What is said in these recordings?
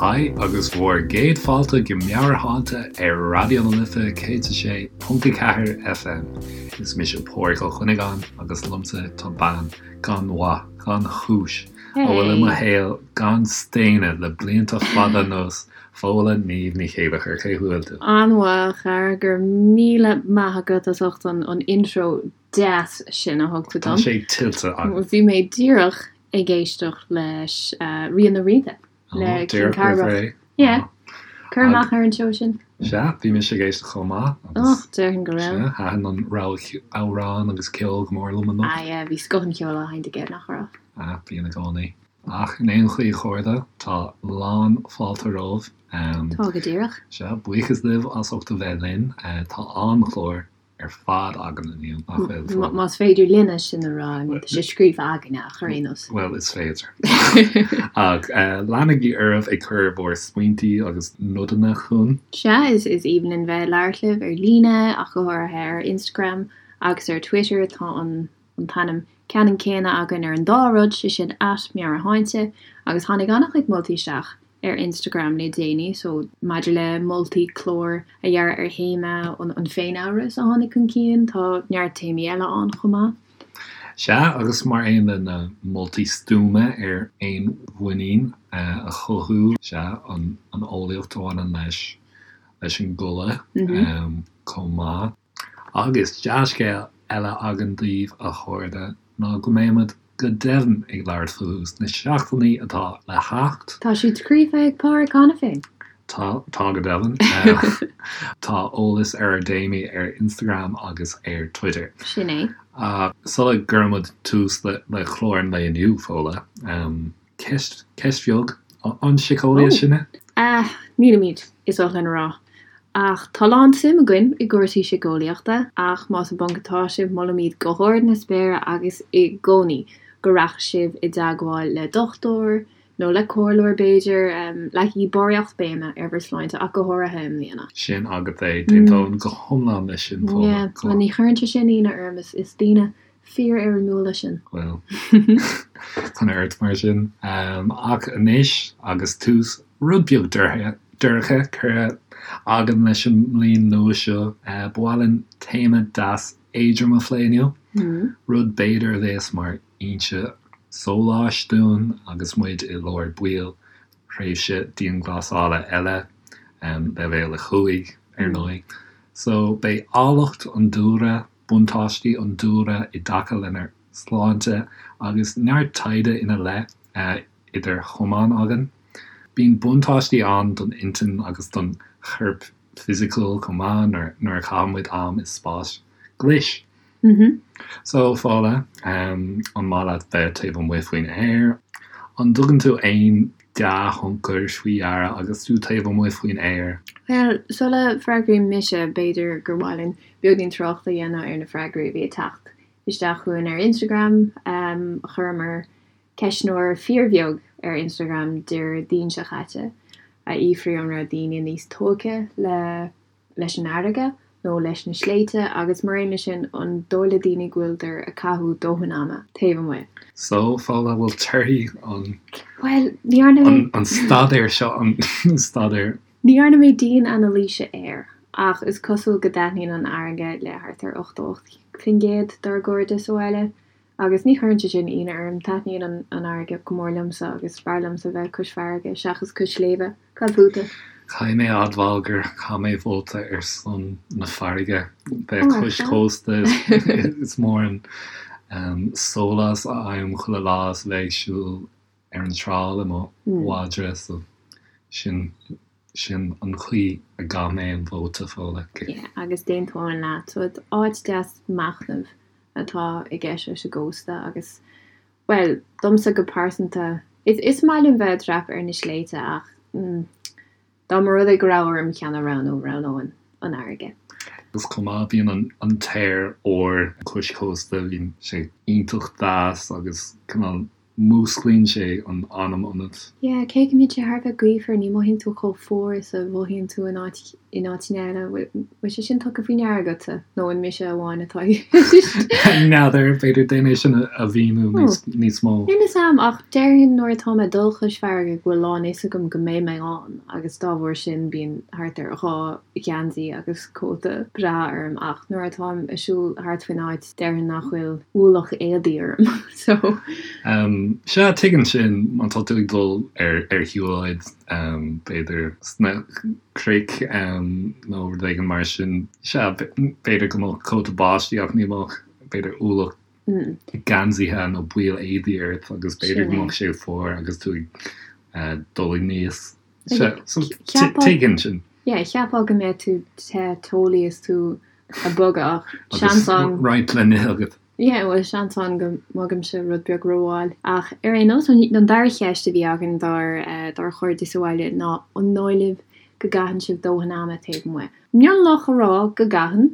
Haigh agus bhur gcéad fáilte go Meabhairshláinte ar Raidió na Life 106.4 FM. Is mise Páraic Ó Cuinneagáin agus liomsa tá bean gan mhaith, gan chúis, a bhfuil i mo shaol gan staonadh le blianta fada anuas, Fódhla Niamh Ní Chéilleachair. Cén chaoi a bhfuil tú? An-mhaith, a chara, go raibh míle maith agat as ucht an intro deas sin a thug tú dom. Tá sé tuillte agat. Bhí mé díreach ag éisteacht leis Rian na Rianta le King Cárthach. Yeah. Cur amach ar an seó sin. Sea, bhí mise ag éisteacht chomh maith. Och, déarfainn go raibh. Sea, thaitin an rogha amhrán agus ceol go mór liom anocht. Ah yeah, bhí scoth an cheoil á sheinnt aige, nach raibh? Ah, bíonn i gcónaí. Ach in aon chaoi, a chairde, tá lán fáilte romhaibh. Tá go díreach. Sea, buíochas libh as ucht a bheith linn. Tá an-chlár ar fad againn inniu, nach bhfuil, Fódhla? Más féidir linne sin a rá, I mean, tá sé scríofa againne ach ar aon nós. Bhuel, is féidir. Ach leanaigí oraibh ag cur bhur smaointí agus nodanna chugainn. Sea, is aoibhinn linn bheith ag labhairt libh ar líne, ach go háirithe ar Instagram agus ar Twitter. Tá an t-ainm ceannann céanna againn ar an dá rud, sé sin @meabhairshláinte, agus tháinig an-chuid moltaí isteach ar Instagram le déanaí so maidir le moltaí clár a dhearadh ar théama an féin-amhras a tháinig chun cinn, tá neart téamaí eile ann chomh maith. Sea, agus mar aon le na moltaí stuama ar fhéinmhuinín a chothú, sea, an eolaíocht a bhaineann leis leis an gcodladh chomh maith. Agus dea-scéal eile againn daoibh, a chairde, ná go mbeimid go deimhin ag labhairt fúthu sna seachtainí atá le theacht. Tá siad scríofa ag Páraic cheana féin. Tá, tá go deimhin. Tá eolas ar ár dtéamaí ar Instagram agus ar Twitter. Sin é. Ach sula gcuirimid tús le clár an lae inniu, Fódhla, Ceist, ceist bheag, an síceolaithe sinne? Ah, nílimid, is oth linn a rá. Ach tá lán suim againn i gcúrsaí síceolaíochta, ach más i bponc atá sibh, molaimid go hard na spéire agus i gcónaí go rachadh sibh i dteagmháil le dochtúir, nó le comhairleoir b'fhéidir, leagaigí barraíocht béime ar bhur sláinte, ach go háirithe i mbliana. Sin agat é, d'aontóinn go hiomlán leis sin, Fódhla. Yeah, bhuel ní chuireann sé sin ionadh orm, is daoine fíorfhoirmiúla sinn. Bhuel, coinnigh ort mar sin. Ach anois, agus tús rud beag dorcha curtha againn leis an mbliain nua seo, ba mhaith linn téama deas éadrom a phlé inniu, rud b'fhéidir a bheas mar fhoinse sóláis dúinn agus muid i lár baill thréimhse dianghlasála eile, leibhéal 5, ar ndóigh. So, beidh áilleacht an dúlra buntáistí an dúlra i dtaca lenár sláinte agus neart taighde ina leith idir chamáin againn. Bíonn buntáistí ann don intinn agus don chorp fisiciúil chomh maith nuair a chaitheann muid am i spáis ghlais. So, Fódhla, an maith leat bheith taobh amuigh faoin aer? An dtugann tú aon dea-thionchar faoi deara agus tú taobh amuigh faoin aer? Bhuel, sula bhfreagraím mise, b'fhéidir gur mhaith linn beagáinín tráchta a dhéanamh ar na freagraí a bhí ag teacht isteach chugainn ar Instagram. Chuireamar ceistneoir fíorbheag ar Instagram Déardaoin seo caite a fhiafraigh an raibh daoine níos tógtha le leis an fharraige nó leis na sléibhte agus mar aon leis sin an dóigh le daoine go bhfuileadar ag caitheamh dóthain ama taobh amuigh. So, Fódhla, bhfuil torthaí an Bhuel, ní dhearna mé. an staidéar seo, an staidéar. Ní dhearna mé dian-anailíse air, ach is cosúil go dtaitníonn an fharraige le thart ar 88% dár gcairde sa bhaile. Agus ní chuireann sé sin ionadh orm, taitníonn an fharraige go mór liomsa agus is fearr liomsa bheith cois farraige seachas cois sléibhe. Cad fútsa? Caithfidh mé a admháil gur chaith mé vóta ar son na farraige. Bheith cois cósta is mór an sólás a fhaighim chuile lá is a bheith ag siúl ar an trá le mo mhadra so sin sin an chaoi a gcaith mé an vóta, Fódhla. Yeah, agus d'aontóinn leat. So áit deas machnaimh atá i gceist leis an gcósta agus, bhuel, domsa go pearsanta, is maith liom bheith ag dreapadh ar na sléibhte ach dá mba rud é go raibh orm ceann a roghnú, roghnóinn an fharraige. Agus chomh maith, bíonn an t-aer úr cois cósta, bíonn sé iontach deas agus cineál músclaíonn sé an anam ionat. Yeah, cé go mbíonn sé thar a bheith gaofar, ní mhothaíonn tú chomh fuar is a mhothaíonn tú in áit. in áiteanna eile. Bhfuil sé sin tugtha faoi ndeara agatsa nó an mise amháin atá i gceist? N'fheadar, b'fhéidir déan é sin a mhíniú níos mó. Níl 'fhios a'm, ach déarfainn nuair atá mé ag dul chois farraige go bhfuil lán fhios agam go mbeidh mé ann agus dá bharr sin bíonn thart ar dhá gheansaí agus cóta breá orm ach nuair atáim ag siúl thart faoin áit déarfainn nach bhfuil ualach éadaí orm so. Sea, tuigim sin má tá tú ag dul ar ar shiúlóid b'fhéidir sna cnoic nó rud éigin mar sin. Sea, b'fhéidir go mbeadh cóta báistí ach ní bheadh, b'fhéidir, ualach geansaithe nó baill éadaí ort agus b'fhéidir go mbeadh sé fuar agus tú ag dul aníos. Sea, so tuigim sin. Yeah, cheapfá go mbeadh tú te teolaí is tú ag bogadh ach seans ann. Agus roinnt le n-ithe agat. Yeah, bhuel, seans ann go mbogaimse rud beag rómhall. Ach ar aon nós, an dara cheist a bhí againn dár dár chairde sa bhaile ná an dóigh libh go gcaitheann sibh dóthain ama taobh amuigh? Mionlach a rá go gcaitheann.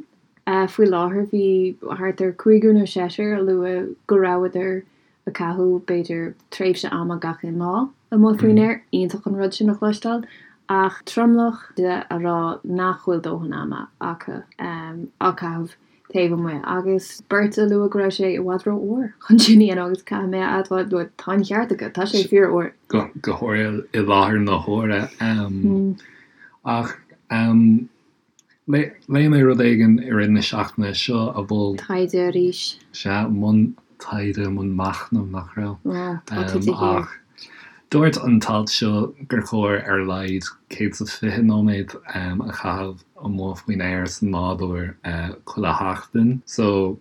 Faoi láthair bhí thart ar cúigear nó seisear a luaigh go rabhadar ag caitheamh b'fhéidir tréimhse ama gach aon lá amuigh faoin aer. Iontach an rud sin a chloisteáil. Ach tromlach de a rá nach bhfuil dóthain ama acu á caitheamh taobh amuigh agus beirt a luaigh go raibh sé i bhfad rófhuar chun sin a dhéanamh agus caithfidh mé a admháil bhuel tá an cheart acu, tá sé fíorfhuar. Go háirithe i láthair na huaire. Ach léigh mé rud éigin i rith na seachtaine seo a mhol. Taighde arís. Sea, i mbun taighde, i mbun machnaimh, nach raibh? Tá tú de shíor. Ach dúirt an t-alt seo gur chóir ar a laghad 120 nóiméad a chaitheamh amuigh faoin aer sa nádúr chuile sheachtain. So,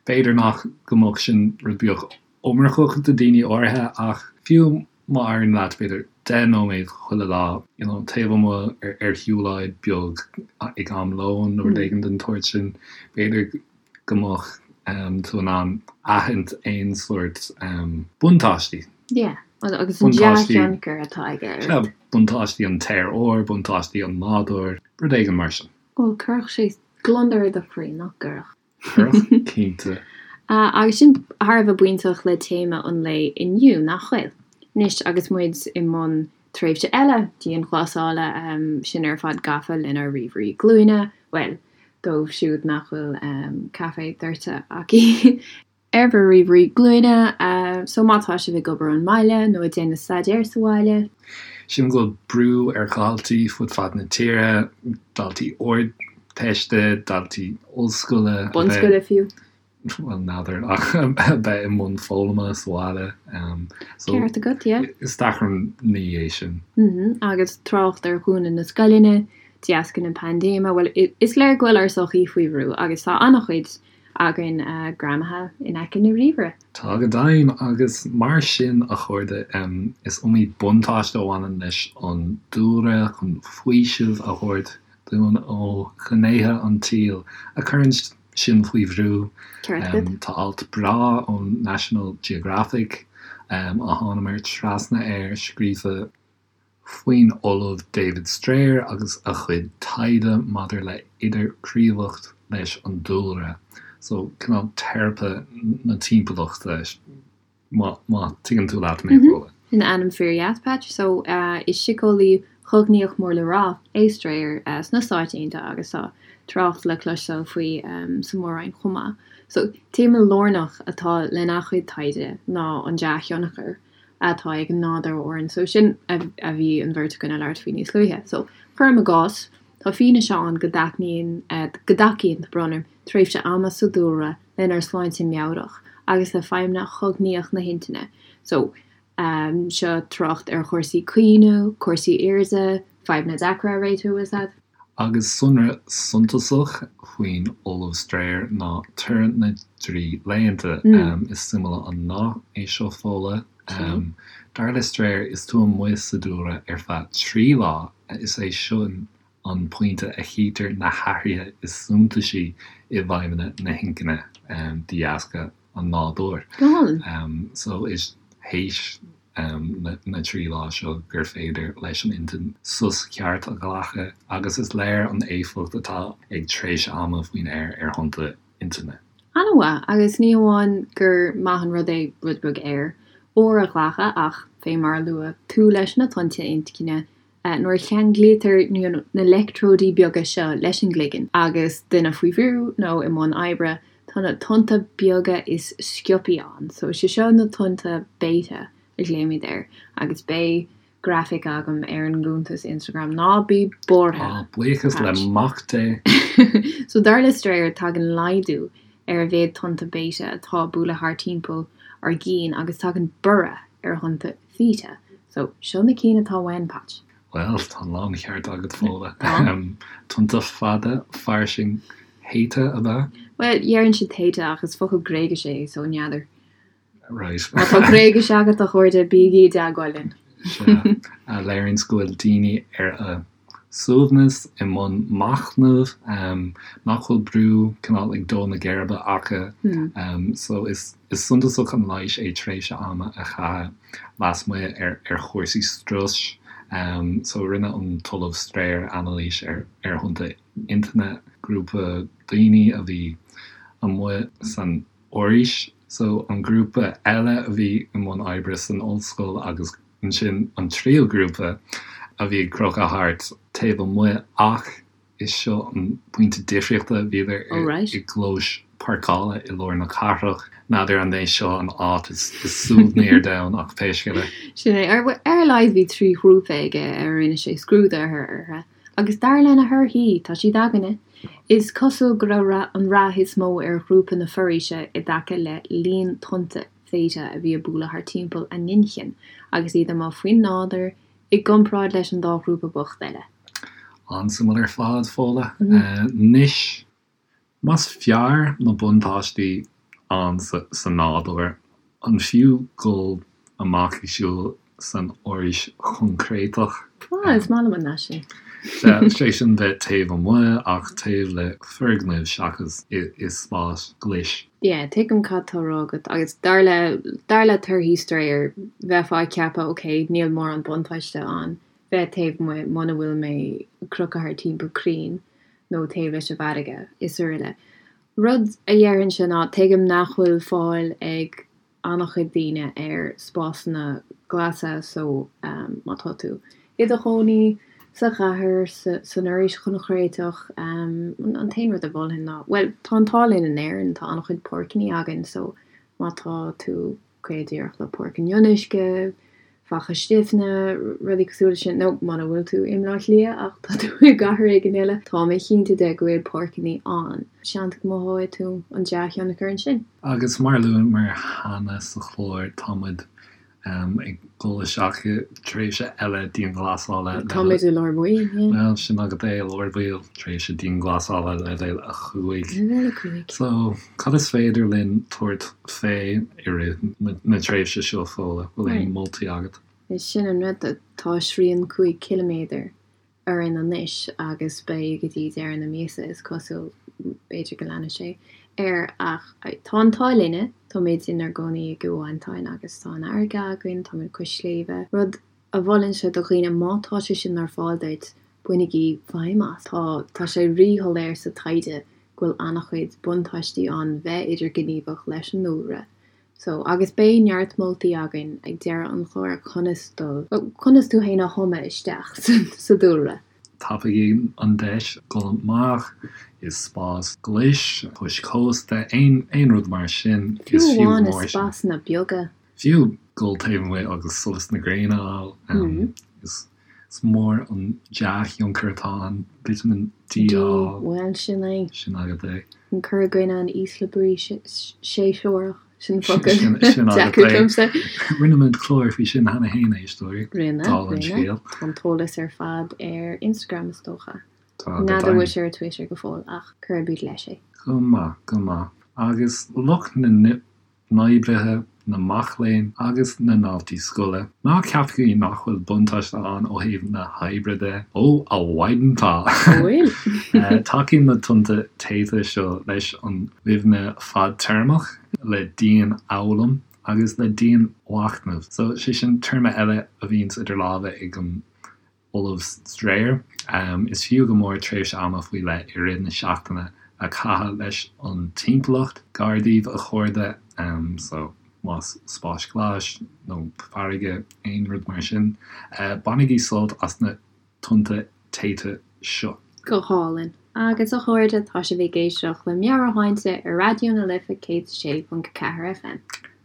b'fhéidir nach go mbeadh sin rud beag iomarcach do daoine áirithe ach fiú má éiríonn leat b'fhéidir 10 nóiméad chuile lá, you know, taobh amuigh ar shiúlóid beag ag am lóin nó rud éigin den tsórt sin, b'fhéidir go mbeadh tú in ann aithint aon sórt buntáistí. Yeah, agus an dea-thionchar atá aige ort. Sea, buntáistí an t-aer úr, buntáistí an nádúir, rud éigin mar sin. Bhuel, cuirfeadh sé gliondar i do chroí, nach gcuirfeadh? Cuirfeadh, cinnte. Agus sin thar a bheith bainteach le téama an lae inniu, nach bhfuil? Anois, agus muid i mbun tréimhse eile dianghlasála, sinn ar fad gafa lenár ríomhairí glúine, bhuel, dóibh siúd nach bhfuil caife doirte acu ar bhur ríomhairí glúine, so má tá sibh ag obair ón mbaile nó ag déanamh staidéir sa bhaile. Sílim go bhfuil brú ar dhaltaí fud fad na tíre, daltaí Ardteiste, daltaí ollscoile, a bheith. Bunscoile fiú. bhuel, n'fheadar, ach a bheith i mbun foghlama sa bhaile. So, Ceart agat, yeah. Is deacair an ní é sin. Agus trácht ar dhúnadh na scoileanna, de dheasca na paindéime, bhuel, is léir go bhfuil ár sochaí faoi bhrú agus tá an-chuid againn greamaithe in aice na ríomhaire. Tá go deimhin, agus mar sin, a chairde, is iomaí buntáiste a bhaineann leis an dúlra chun faoiseamh a thabhairt dúinn ó ghnéithe an tsaoil a chuireann sinn faoi bhrú. Tá alt breá ón National Geographic a thánamar trasna air scríofa faoin Ollamh David Strayer agus a chuid taighde maidir le idirghníomhaíocht leis an dúlra. So, cineál teiripe na timpeallachta. Má tuigeann tú leat mé, Fódhla. Sin ainm fíor-dheas, Patch. So, is síceolaí cognaíoch mór le rá é Strayer sna Stáit Aontaithe agus tá trácht le cloisteáil faoi sa Mhór-Roinn chomh maith. So, téama lárnach atá lena chuid taighde ná an dea-thionchar atá ag an nádúr orainn. So, sin a bhí an bheirt againn ag labhairt faoi níos luaithe. So, cuirim i gcás, tá fianaise ann go dtaitníonn, go dtacaíonn, tá brón orm, tréimhse ama sa dúlra lenár sláinte meabhrach agus le feidhmeanna chognaíoch na hintinne. So, seo trácht ar chúrsaí cuimhne, cúrsaí airde, fadhbanna deacra a réitiú, is ea. Agus sonra suntasach faoin Ollamh Strayer ná toradh na dtrí laethanta. Is suimiúil an nath é seo, Fódhla. Dar le Strayer, is tú amuigh sa dúlra ar feadh 3 lá, is é sin an pointe a chítear na hathruithe is suntasaí i bhfeidhmeanna na hinchinne de dheasca an nádúir. So is théis na dtrí lá seo gur féidir leis an intinn sos ceart a ghlacadh agus is léir an éifeacht atá ag tréimhse ama faoin aer ar thonnta intinne. An-mhaith, agus ní hamháin gur maith an rud é rud beag aer úr a ghlacadh ach, fé mar a luaigh tú leis na tonnta intinne. Nuair a cheanglaítear na leictreoidí beaga seo leis an gcloigeann agus duine faoi bhrú nó i mbun oibre, tá na tonnta beaga is sciobthaí ann. So is é seo na tonnta beta a ghlaoimid air agus beidh grafaic agam ar an gcuntas Instagram, ná bí buartha! Á, buíochas le Mac Dé! So dar le Strayer, tagann laghdú ar a mhéad tonnta beta atá ag bualadh thart timpeall ár gcinn agus tagann borradh ar thonnta theta. So, seo na cinn atá uainn, Patch. Bhuel, tá an láncheart agat, Fódhla. Tonnta fada, fairsing, theta, ab ea? Bhuel, deireann siad theta ach is focal Gréigise é, so n'fheadar. Right. Má tá Gréigis agat, a chairde, bígí i dteagmháil linn. Sea, a léiríonns go bhfuil daoine ar a suaimhneas, i mbun machnaimh, nach bhfuil brú cineál ag dó na geirbe acu. So is suntasach an leigheas é tréimhse ama a chaitheamh lasmuigh ar chúrsaí struis. So rinne an tOllamh Strayer anailís ar thonnta intinne grúpa daoine a bhí amuigh san fhoraois. So an grúpa eile a bhí i mbun oibre san ollscoil agus ansin an tríú grúpa a bhí ag crochadh thart taobh amuigh ach is seo an pointe difríochta, bhíodar i gclóis páirceála i lár na cathrach. N'fheadar an é seo an áit is suaimhní ar domhan ach pé scéal é. Sin é. Ar a laghad bhí 3 ghrúpa aige ar a rinne sé scrúdú orthu. Agus dar lena thorthaí, tá siad againne, is cosúil go raibh an rath is mó ar ghrúpa na foraoise i dtaca le líon tonnta theta a bhí ag bualadh thart timpeall a n-inchinn agus iad amuigh faoin nádúr i gcomparáid leis an dá ghrúpa bocht eile. An-suimiúil ar fad, Fódhla. Anois, Más fearr na buntáistí ann sa nádúr, an fiú dul amach ag siúl san fhoraois choincréiteach? Ah, is maith liom an nath sin. Sea, sé sin bheith taobh amuigh ach taobh le foirgneamh seachas i spás glais. Yeah, tuigim cad tá á rá agat agus dar le, dar le torthaí Strayer, bheifeá ag ceapadh, ok, níl mórán buntáiste ann bheith taobh amuigh muna bhfuil mé ag crochadh thart timpeall crainn. nó taobh leis an bhfarraige, is araile. Rud a dhéarfainnse ná, tuigim nach bhfuil fáil ag an-chuid daoine ar spásanna glasa so má tá tú i do chónaí sa chathair, san fhoraois choincréiteach, an t-aon rud a mholfainn ná, bhuel, tá an t-ádh linn in Éirinn, tá an-chuid páirceanna againn so má tá tú gafa díreach le Páirc an Fhionnuisce, Faiche Stiabhna, rudaí cosúil leis sin, nó muna bhfuil tú i mBleá Cliath ach tá tú i gcathair éigin eile, tá mé cinnte de go bhfuil páirceanna ann. Seans go mothóidh tú an dea-thionchar ansin. Agus mar a luamar cheana sa chlár, tá muid ag dul isteach i dtréimhse eile dianghlasála. Tá muid i lár baill, yeah. Bhuel, sin agat é, i lár baill, tréimhse dianghlasála leibhéal 5. Leibhéal 5. So, cad is féidir linn tabhairt fé i rith na tréimhse seo, Fódhla? Bhfuil aon moltaí agat? Is sin an rud, tá srian 5 ciliméadar orainn anois agus beidh go dtí deireadh na míosa is cosúil, b'fhéidir go leanfaidh sé air ach tá an t-ádh linne, táimid inár gcónaí i gCill Mhantáin agus tá an fharraige againn, táimid cois sléibhe, rud a mholfainnse do dhaoine má tá sé sin ar fáil duit, bainigí feidhm as. Tá tá sé rí-shoiléir sa taighde go bhfuil an-chuid buntáistí ann bheith idirghníomhach leis an ndúlra So, agus beidh neart moltaí againn ag deireadh an chláir conas dul, conas tú fhéin a thumadh isteach sa dúlra. Tapaígí an deis dul amach i spás glais, cois cósta, aon rud mar sin. Fiú amháin i spásanna beaga. Fiú dul taobh amuigh agus solas na gréine a fháil. Is Is mór an dea-thionchar atá ann, Vitamin D a fháil. Bhuel, sin é. Sin agat é. An cur i gcoinne an ísle brí séasúrach, sin focal deacair domsa. Rinne muid clár faoi sin cheana féin, a éisteoirí. Rinne, rinne. Tá an t-eolas ar fad ar Instagram, is dócha. Tá, go N'fheadar bhfuil sé ar Twitter go fóill, ach cuirfimid leis é. Go maith, go maith. Agus lucht na n-oibrithe, na mac léinn agus na ndaltaí scoile. Ná ceapaigí nach bhfuil buntáiste ann ó thaobh na hoibre de. Ó, a mhaighdean tá! Bhfuil? Tacaíonn na tonnta theta seo leis an gcuimhne fadtéarmach, le dianfhoghlaim agus le dianmhachnamh. So, sé sin téarma eile a bhíonns idir lámha ag an Ollamh Strayer. Is fiú go mór tréimhse ama faoi leith i rith na seachtaine a chaitheamh leis an timpeallacht gar daoibh, a chairde. So, más spáis ghlais nó farraige, aon rud mar sin, bainigí sult as na. tonnta téite seo. Go hálainn. Agus a chairde, tá sibh ag éisteacht le Meabhairshláinte ar Raidió na Life 106.4 FM.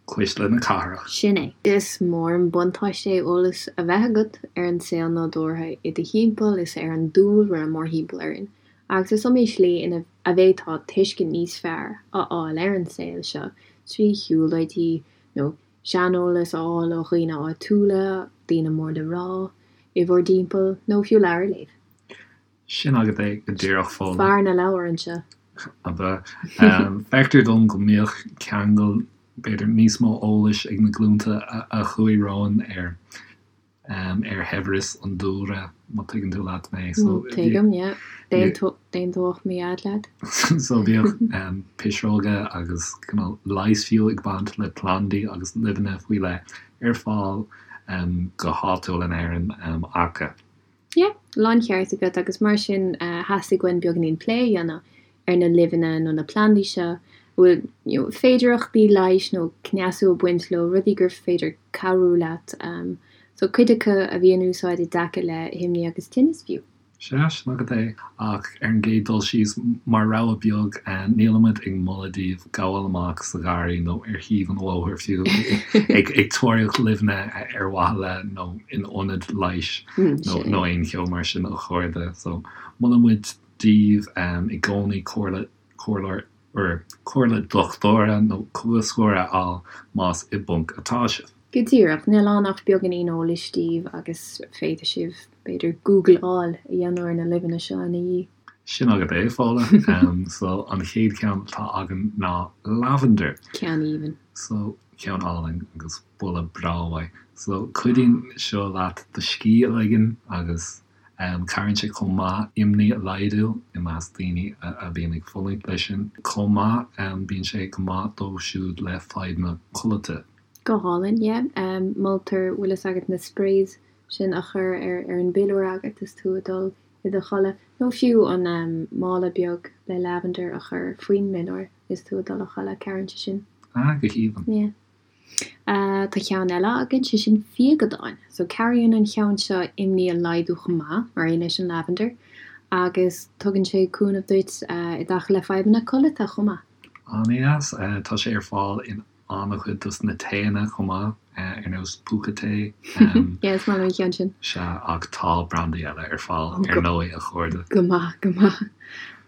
Cuisle na cathrach. Sin é. Is mór an buntáiste é eolas a bheith agat ar an saol nádúrtha i do thimpeall is ar an dúlra mórthimpeall orainn, agus is iomaí slí ina a bhféadfá tuiscint níos fearr a fháil ar an saol seo trí shiúlóidí nó seaneolas a fháil ó dhaoine áitiúla, daoine mór le rá i bhur dtimpeall, nó fiú leabhar a léamh. Sin agat é go díreach, Fódhla. Fear na leabhar anseo. Ab ea? Feictear dom go mbíodh ceangal, b'fhéidir, níos mó eolais ag na glúnta a chuaigh romhainn ar ar shaibhreas an dúlra, má tuigeann tú leat mé. So, Tuigim, yeah. D'aontódh mo dhaid leat. So bhíodh pisreoga agus cineál leighis fiú ag baint le plandaí agus luibheanna faoi leith ar fáil go háitiúil in Éirinn acu. Yeah, láncheart agat agus mar sin theastaigh uainn beagáinín plé a dhéanamh ar na luibheanna nó na plandaí seo a bhfuil you know féidearthachtaí leighis nó cneasú ag baint leo, rudaí gur féidir cabhrú leat. So cuid acu a bhí in úsáid i dtaca le himní agus tinneas fiú. Sea, sin agat é. Ach ar an gcéad dul síos, mar rabhadh beag, nílimid ag moladh daoibh gabháil amach sa gharraí nó ar thaobh an bhóthair fiú ag tóraíocht luibheanna ar mhaithe le nó in ionad leighis nó aon cheo mar sin a chairde. So, molann muid daoibh i gcónaí comhairle, comhairleoir, comhairle dochtúra nó cógaiseora a fháil más i bponc atá sibh. Go díreach, níl ann ach beagáinín eolais daoibh agus féadfaidh sibh, b'fhéidir, Googleáil a dhéanamh ar na luibheanna seo ina dhiaidh. Sin agat é, Fódhla. So, an chéad cheann atá againn ná lavender. Ceann aoibhinn. So, ceann álainn agus boladh breá uaidh. So, cuidíonn seo leat do scíth a ligean agus Cabhraíonn sé chomh maith imní a laghdú i measc daoine a bhíonn ag fulaingt leis sin. Chomh maith, bíonn sé go maith dóibh siúd le fadhbanna codlata. Go hálainn, yeah. Moltar, bhfuil fhios agat, na sprays sin a chur ar ar an bpiliúr agat is tú ag dul i do chodladh, nó fiú an mála beag le lavender a chur faoin bpiliúr is tú ag dul a chodladh, cabhraíonn sé sin. Ah, go haoibhinn. Yeah. Tá ceann eile againn, sé sin fíogadán. So cabhraíonn an cheann seo imní a laghdú chomh maith, mar aon leis an lavender, agus tugann sé cúnamh duit i dtaca le fadhbanna codlata chomh maith. An-deas. Tá sé ar fáil in an-chuid dos na taeanna chomh maith, ar nós Púca Tae. Yeah, is maith liom an ceann sin. Sea, ach tá brandaí eile ar fáil, ar ndóigh, a chairde. Go maith, go maith.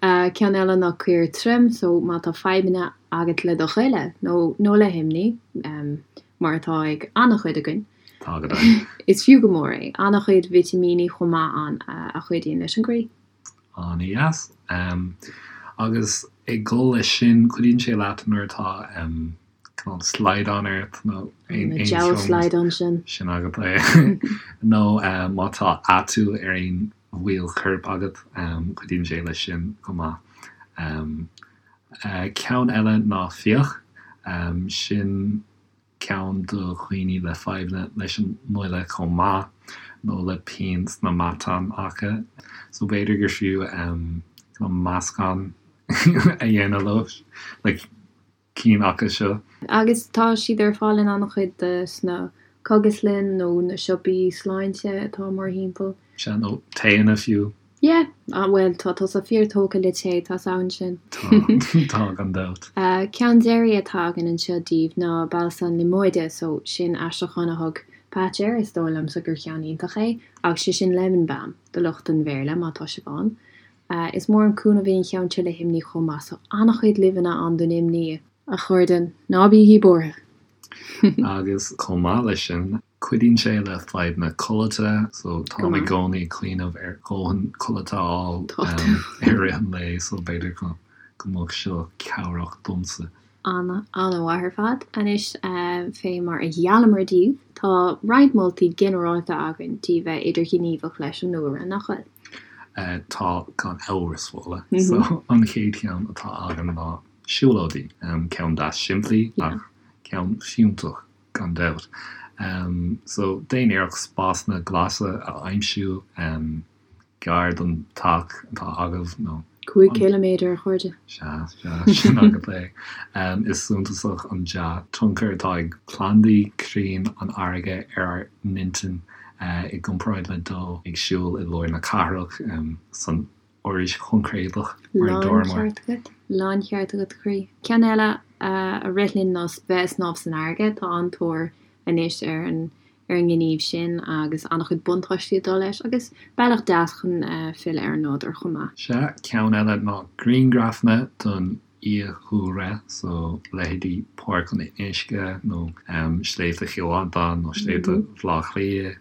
Ceann eile ná caor tirim, so má tá fadhbanna agat le do ghoile nó nó le himní, mar atá ag an-chuid againn. Tá go deimhin. Is fiú go mór é. An-chuid vitimíní chomh maith ann a chuidíonn leis an gcroí. An-deas. Agus ag dul leis sin, cuidíonn sé leat nuair atá cineál slaghdán ort nó aon Na deabhal slaghdán sin. Sin agat é. Nó má tá atú ar aon bhaill choirp agat, cuidíonn sé leis sin chomh maith. Ceann eile ná fiach. Sin ceann do dhaoine le fadhbanna leis an ngoile chomh maith, nó le pian sna matáin acu. So b'fhéidir gur fiú meascán a dhéanamh leo, le cinn acu seo. Agus tá siad ar fáil in an-chuid de sna cógaslanna nó na siopaí sláinte atá mórthimpeall. Sea, nó taeanna fiú. Yeah, ah bhuel, tá tusa fíor tógtha le tae, tá's a'm sin. Tá, tá, gan dabht. Ceann deiridh atá againn anseo daoibh ná balsam liomóide, so sin aistriúchán a thug Patch air, is dóigh liomsa gur cheann iontach é, ach sé sin lemon balm do lucht an Bhéarla má tá sibh ann. Is mór an cúnamh é an cheann seo le himní chomh maith, so an-chuid luibheanna ann don imní. A chairde, ná bígí buartha! Agus chomh maith leis sin, Cuidíonn sé le fadhbanna codlata, so táim i gcónaí ag cuimhneamh ar dhóthain codlata a fháil i rith an lae, so b'fhéidir go mbeadh seo cabhrach domsa. Ana, ana-mhaith ar fad. Anois, fé mar a gheallamar daoibh, tá roinnt moltaí ginearálta againn daoibh bheith idirghníomhach leis an ndúlra, nach bhfuil? Tá, gan amhras, Fódhla. So, an chéad cheann atá againn ná siúlóidí. Ceann deas simplí ach ceann fiúntach. gan dabht. So, déan iarracht spásanna glasa a aimsiú gar don teach atá agaibh nó. 5 ciliméadar, a chairde. Sea, sea, sin agat é. Is suntasach an dea-tionchar atá ag plandaí, crainn, an fharraige ar ár n-intinn. i gcomparáid le dul ag siúl i lár na cathrach san fhoraois choincréideach mar a dúramar. Láncheart agat, láncheart agat a chroí. Ceann eile a rith linn ná bheith ag snámh san fharraige, tá an-tóir anois ar an ar an ngníomh sin agus an-chuid buntáistí ag dul leis agus bealach deas chun filleadh ar an nádúr chomh maith. Sea, ceann eile ná grianghrafanna don fhiadhúlra, so leithéidí Páirc an Fhionnuisce nó Sléibhte Chill Mhantáin nó Sléibhte Bhaile Átha Cliath.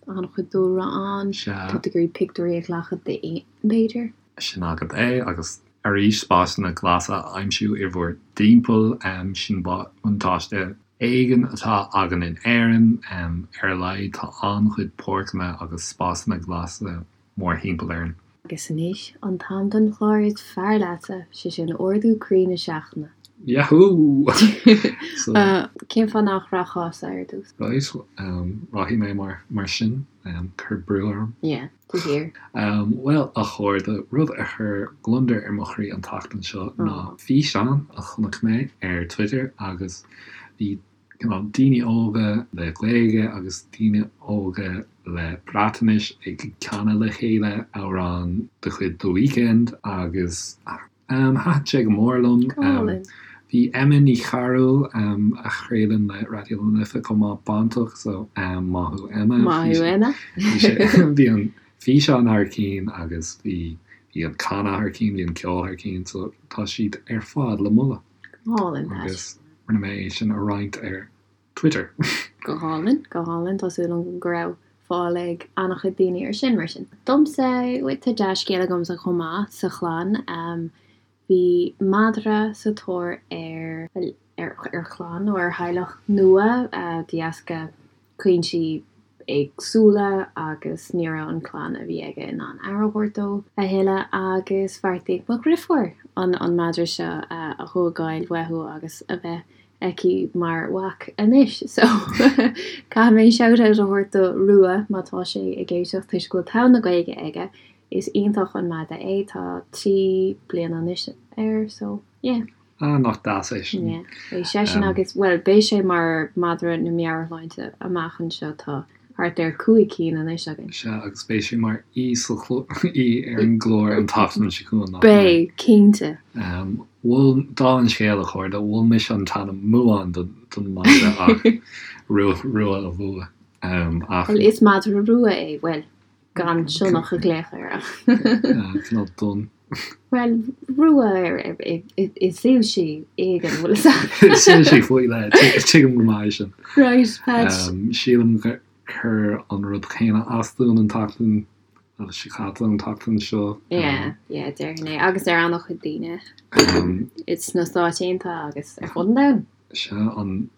An-chuid dúlra ann. Sea. Tá tú ag iarraidh pictiúirí a ghlacadh d'éin, b'fhéidir. Sin agat é, agus arís spásanna glasa a aimsiú i bhur dtimpeall, sin buntáiste éigin atá againn in Éirinn, ar a laghad tá an-chuid páirceanna agus spásanna glasa mórthimpeall orainn. Agus anois an t-am don chlár is fearr leatsa, sé sin Ardú Croí na Seachtaine. Yahoo! So. Cén fáth nach rachfása ar dtús? Right, rachaidh mé mar sin, cuir brú orm. Yeah, de shíor. Bhuel, a chairde, rud a chuir gliondar ar mo chroí an tseachtain seo ná físeán a chonaic mé ar Twitter agus bhí cineál daoine óga le Gaeilge agus daoine óga le Breatnais ag canadh le chéile amhrán de chuid The Weeknd agus thaitin sé go mór liom. Go hálainn. Bhí Emma Ní Chearúil, a chraolann le Raidió na Life chomh maith, bainteach so maith thú Emma. Maith thú Emma. Bhí an físeán thar cinn agus bhí an canadh thar cinn, bhí an ceol thar cinn so tá siad ar fad le moladh. Go hálainn, Pat. Agus rinne mé é sin a roinnt ar Twitter. Go hálainn, go hálainn. Tá súil agam go raibh fáil ag an-chuid daoine air sin, mar sin. Domsa, tá dea-scéal agamsa chomh maith sa chlann. Bhí madra sa tóir ar, ar chlann nó ar theaghlach nua de dheasca cúinsí éagsúla agus ní raibh an clann a bhí aige in ann aire a thabhairt dó a thuilleadh agus bheartaigh mo dhriofúr an an madra seo a thógáil uathu agus a bheith aici mar mhac anois so caithfidh mé shout out a thabhairt do Rua má tá sé ag éisteacht toisc go bhfuil togha na Gaeilge aige is iontach an madra é tá 3 bliana anois air so yeah. Ah, nach deas é sin. Yeah, beidh seisean agus, bhuel, beidh sé mar madra na meabhairshláinte amach anseo, tá thart ar 5 cinn anois againn. Sea, agus beidh sé mar aoi sa aoi ar an gclár an tseachtain seo chugainn, nach mbeidh? Beidh, cinnte. Mhol, dála an scéil, a chairde, mhol mise an t-ainm Muán don madra ach Rua, Rua a bhuaigh. Ach. Bhuel, is madra rua é, bhuel, gan sionnach a ghlaoch air ach. Cineál donn. Bhuel, rua i soilsí éigin, bhfuil fhios agat. Soilsí faoi leith, tuigim go maith é sin. Right, Pat. Sílim gur chuir an rud céanna as dúinn an tseachtain seo caite, an tseachtain seo. Yeah, yeah, déarfainn é. Agus ar an-chuid daoine sna Stáit Aontaithe agus ar fud an domhain. Sea,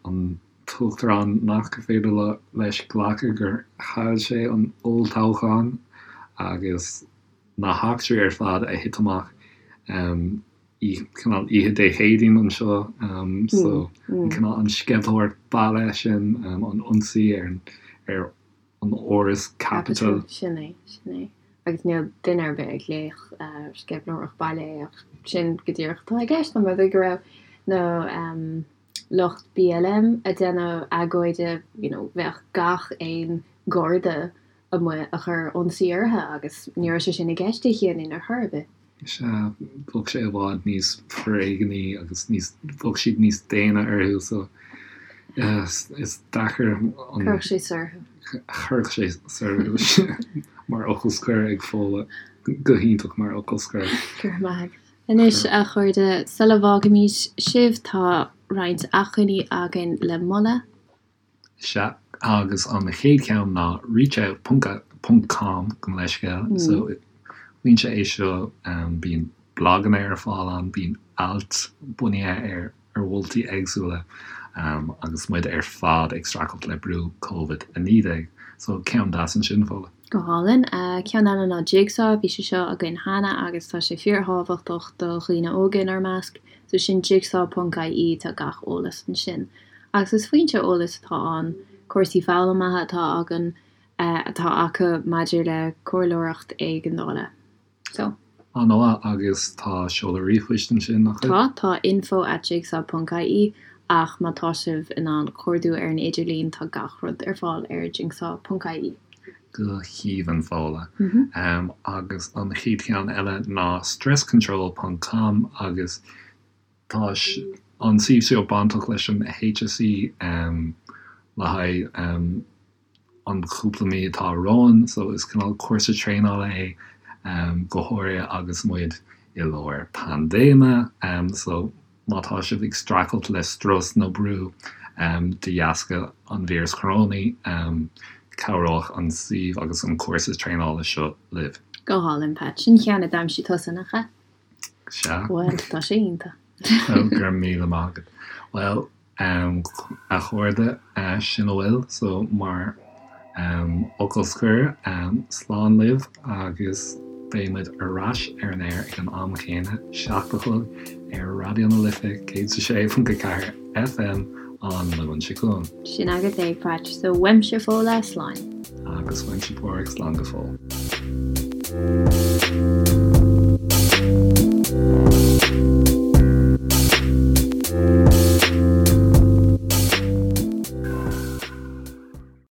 an t-uachtarán nach féidir leis glacadh gur chaill sé an olltoghchán agus na heachtraí ar fad a thit amach cineál oíche Dé Céadaoin anseo so an cineál an sceimhlitheoireacht baile sin, an ionsaí ar ar an áras Capitol. Sin é, sin é. Agus níl duine ar bith ag glaoch sceimhlitheoireacht baile é ach sin go díreach atá i gceist, an rud é go raibh na lucht BLM ag déanamh agóide, you know, bheadh gach aon Gharda amuigh a chuir ionsaí orthu agus ní raibh sé sin i gceist Dé Céadaoin ar chor ar bith. Sea, bheadh sé i bhfad níos foréigní agus níos, bheadh siad níos déine orthu so is deacair an. Chuirfeadh sé soir thú. Chuirfeadh sé soir thú mar fhocal scoir ag Fódhla, go hiontach mar fhocal scoir. Go raibh maith agat. Anois, a chairde, sula bhfágaimid sibh tá roinnt acmhainní againn le moladh. Sea, agus an chéad cheann ná reachout ponc ponc com, gabh mo leithscéal. So, foinse é seo, bíonn blaganna ar fáil ann, bíonn ailt bunaithe ar ar mholtaí éagsúla agus muid ar fad ag streachailt le brú Covid-19. So, ceann deas ansin, Fódhla. Go hálainn. Ceann eile ná Jigsaw, bhí sé seo againn cheana agus tá sé fíorthábhachtach do dhaoine óga inár measc. So sin jigsaw ponc ie, tá gach eolas ansin. Agus is foinse eolais atá ann, cúrsaí foghlamtha atá againn, atá acu maidir le comhairleoireacht éigeandála. So. An-mhaith, agus tá seoladh ríomhphoist ansin, nach bhfuil? Tá, tá info at jigsaw ponc ie. Ach má tá sibh in ann cuardú ar an idirlíon tá gach rud ar fáil ar jingsaw ponc ie. Go haoibhinn, Fódhla. Agus an chéad cheann eile ná stresscontrol ponc com agus tá an suíomh seo bainteach leis an HSE le haghaidh an chúpla mí atá romhainn so is cineál cúrsa traenála é go háirithe agus muid i lár paindéime so má tá sibh ag streachailt le strus nó brú de dheasca an víreas chorónaigh cabhróidh an suíomh agus an cúrsa traenála seo libh. Go hálainn, Pat. Sin ceann a d'aimsigh tusa, nach ea? Sea. Bhuel, tá sé iontach. Go raibh míle maith agat. Bhuel, A chairde, sin a bhfuil so mar fhocal scoir, slán libh agus beidh muid ar ais ar an aer ag an am chéanna, 7 a chlog, ar Raidió na Life 106.4 FM an Luan seo chugainn. Sin agat é, Patch. So, uaimse Fódhla, slán. Agus uaimse Pádraig, slán go fóill.